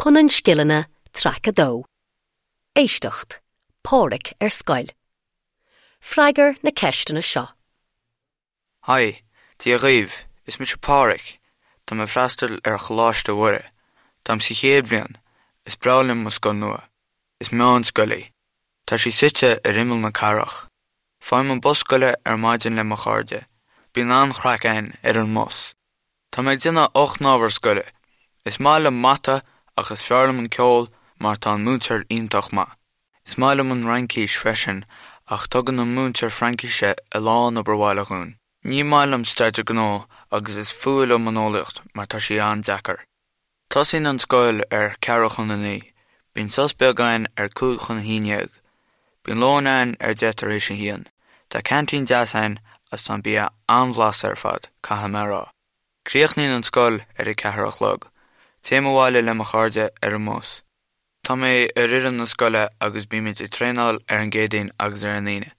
Punann Scileanna, Traic 2. Éisteacht, Páraic ar scoil. Freagair na ceisteanna seo. Haigh, Dia dhaoibh, is mise Páraic. Tá mé ag freastal ar Choláiste Mhuire. Táim sa chéad bhliain. Is breá liom mo scoil nua. Is meánscoil í. Tá sí suite ar imeall na cathrach. Faighim an bus scoile ar maidin le mo chairde. Bíonn an-chraic againn ar an mbus. Tá mé ag déanamh 8 n-ábhar scoile. Is maith liom mata ach is fearr liom an ceol mar tá an múinteoir iontach maith. Is maith liom an Fhraincis freisin ach tugann an múinteoir Fraincise a lán obair bhaile dhúinn. Ní maith liom Staidéar Gnó agus is fuath liom an Eolaíocht mar tá sí an-deacair. Tosaíonn an scoil ar 8:45. Bíonn sos beag againn ar 10:55. Bíonn lón againn ar 1:10. Tá ceaintín deas againn agus tá an bia an-bhlasta ar fad, caithfidh mé a rá. Críochnaíonn an scoil ar a ceathair a chlog. Téim abhaile le mo chairde ar an mbus. Tá mé ar fhoireann na scoile agus bímid ag traenáil ar an gCéadaoin agus ar an Aoine.